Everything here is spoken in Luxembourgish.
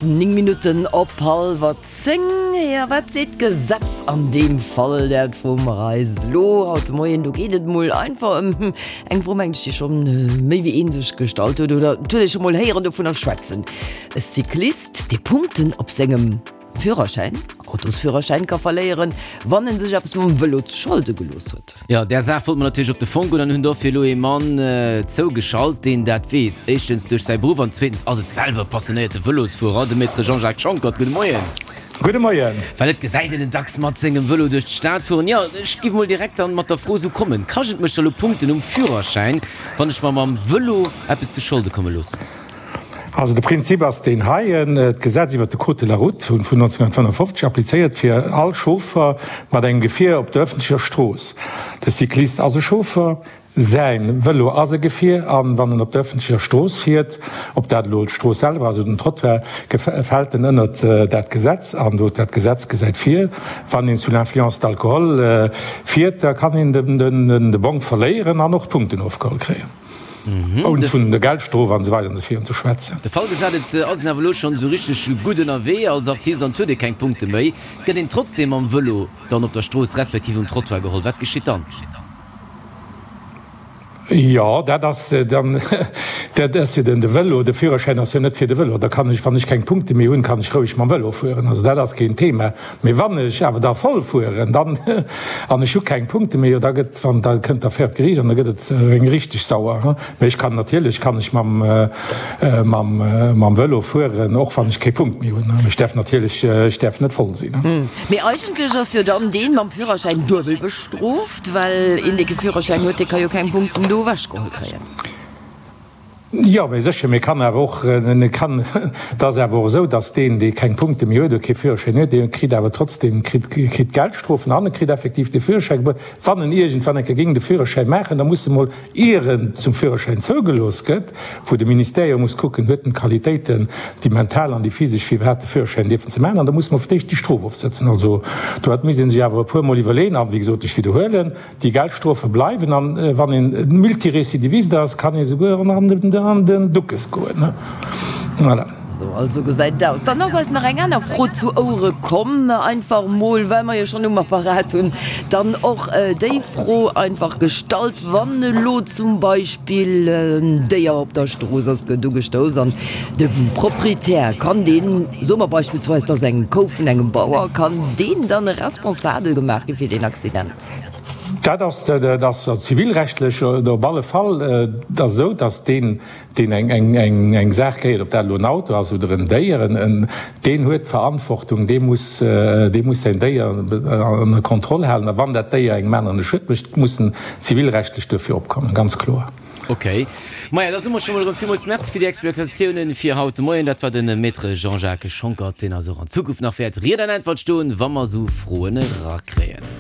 9 Minutten op hallwer 10. Jo, wat seet d'Gesetz an deem Fall? Dat froe mer eis elo haut de Moien. Do geet et mol einfach ëm eng Fro, mengen ech, déi schonn méi wéi een sech gestallt huet oder et huet ee scho mol héieren dovunner schwätzen. E Cyclist, dee Punkten op sengem Führerschäin, Autosführerschäin, ka verléieren, wann en sech eppes mam Vëlo zu Scholde gelooss huet. Jo, där Saach wollte mer natierlech op de Fong goen an hunn dofir elo ee Mann zougeschalt, deen dat weess. Éischtens duerch säi Beruff an zweetens ass et selwer e passionéierte Vëlosfuerer, de Maître Jean-Jacques Schonckert. Gudde Moien. Gudde Moien. Well et gesäit een en dacks mat sengem Vëlo duerch d'Stad fueren. Jo, ech giff mol direkt dann mat der Fro esou kommen, Kascht et mech da lo Punkten um Führerschäin, wann ech mer mam Vëlo eppes zu Scholde komme loossen? Also de Prinzip ass deen heien, D'Gesetz iwwert de Code de la route vun 1955 applizéiert fir all Chauffer mat engem Gefier op der ëffentlecher Strooss. De Cyclist ass e Chauffer, säi Vëlo ass e Gefier an wann en op der ëffentlecher Strooss fiert, ob dat elo d'Strooss selwer ass oder den Trottoir, fält en ënnert dat Gesetz. An do dat Gesetz gesäit vir, wann een sous l'influence d'alcool fiert, da kann een de Bong verléieren an och Punkten ofgeholl kréien. Ouni vun der Geldstrof an esou weider an esou virun ze schwätzen. De Fall gesat, et ass een awer elo schonn esou richteg gutt ënnerwee als Artist an et huet ee keng Punkte méi, gëtt een trotzdeem mam Vëlo dann op der Strooss respektiv um Trottoir geholl. Wat geschitt dann? Jo, dat ass dann, dat ass jo den de Vëlo, de Führerschäin ass jo net fir de Vëlo. Da kann ech, wann ech keng Punkte méi hunn, kann ech roueg mam Vëlo fueren. Also dat ass keen Thema. Mee wann ech awer da voll fueren, dann, an ech hu keng Punkte méi, jo da gëtt, wann, da kënnt d'Affär op d'Geriicht an da gëtt et eng richteg sauer. Mee ech kann natierlech kann ech mam, mam, mam Vëlo fueren, och wann ech kee Punkt méi hunn. Ech däerf natierlech, ech däerf net voll sinn. Mee eigentlech ass jo dann deen mam Führerschäin duebel bestrooft, well een dee kee Führerschäin huet, dee ka jo keng Punkten do ewechgeholl kréien. Jo, mee sécher, mee kann awer och, kann, et ass awer och esou, datt deen, dee keng Punkte méi huet oder kee Führerschäin huet, dee kritt awer trotzdem, kritt, kritt Geldstrofen an e kritt effektiv de Führerschäi gebuer. Wann en iergendwann eng Kéier géing de Führerschäi maachen, da muss e mol, ier en zum Führerschäin zougelooss gëtt, wou de Ministère jo muss kucken, huet en d'Qualitéiten, déi mental an déi physesch, fir iwwerhaapt de Führerschäin dierfen ze maachen, an da muss e mol fir d'éischt déi Strof ofsëtzen. Also do hat misst ee sech awer e puermol iwwerleeën. A wéi gesot, ech widderhuelen, Déi Geldstrofe bleiwen an wann een Multirécidiviste ass, kann ee souguer och nach an den Duckes goen. Voilà. Sou also gesäit et aus. Dann ass eis nach eng aner Fro zu Ouere komm, einfach mol, well mer jo schonn um Apparat hunn, dann och déi Fro einfach gestallt, Wann elo zum Beispill en Déier op der Strooss ass, gëtt ugestouss an de Proprietär, kann deen, soe mer beispillsweis, et ass eng Kou vun engem Bauer, kann deen dann responsabel gemaach gi fir deen Accident? Dat ass, dat ass zivilrechtlech op alle Fall et ass esou, datt deen, deen eng, eng, eng Saach gehéiert, ob dat elo en Auto ass oder en Déier, en, deen huet d'Verantwortung, dee muss, dee muss säin Déier ënner Kontroll halen. A wann dat Déier engem aneren e Schued mécht, muss en zivilrechtlech duerfir opkommen, ganz kloer. Ok. Maja, da soe mer scho mol erëm villmools Merci fir déi Explikatiounen fir haut de Moien. Dat war de Maître Jean-Jacques Schonckert, deen eis och an Zukunft nach wäert Ried an Äntwert stoen, wa mer esou Froen erakréien.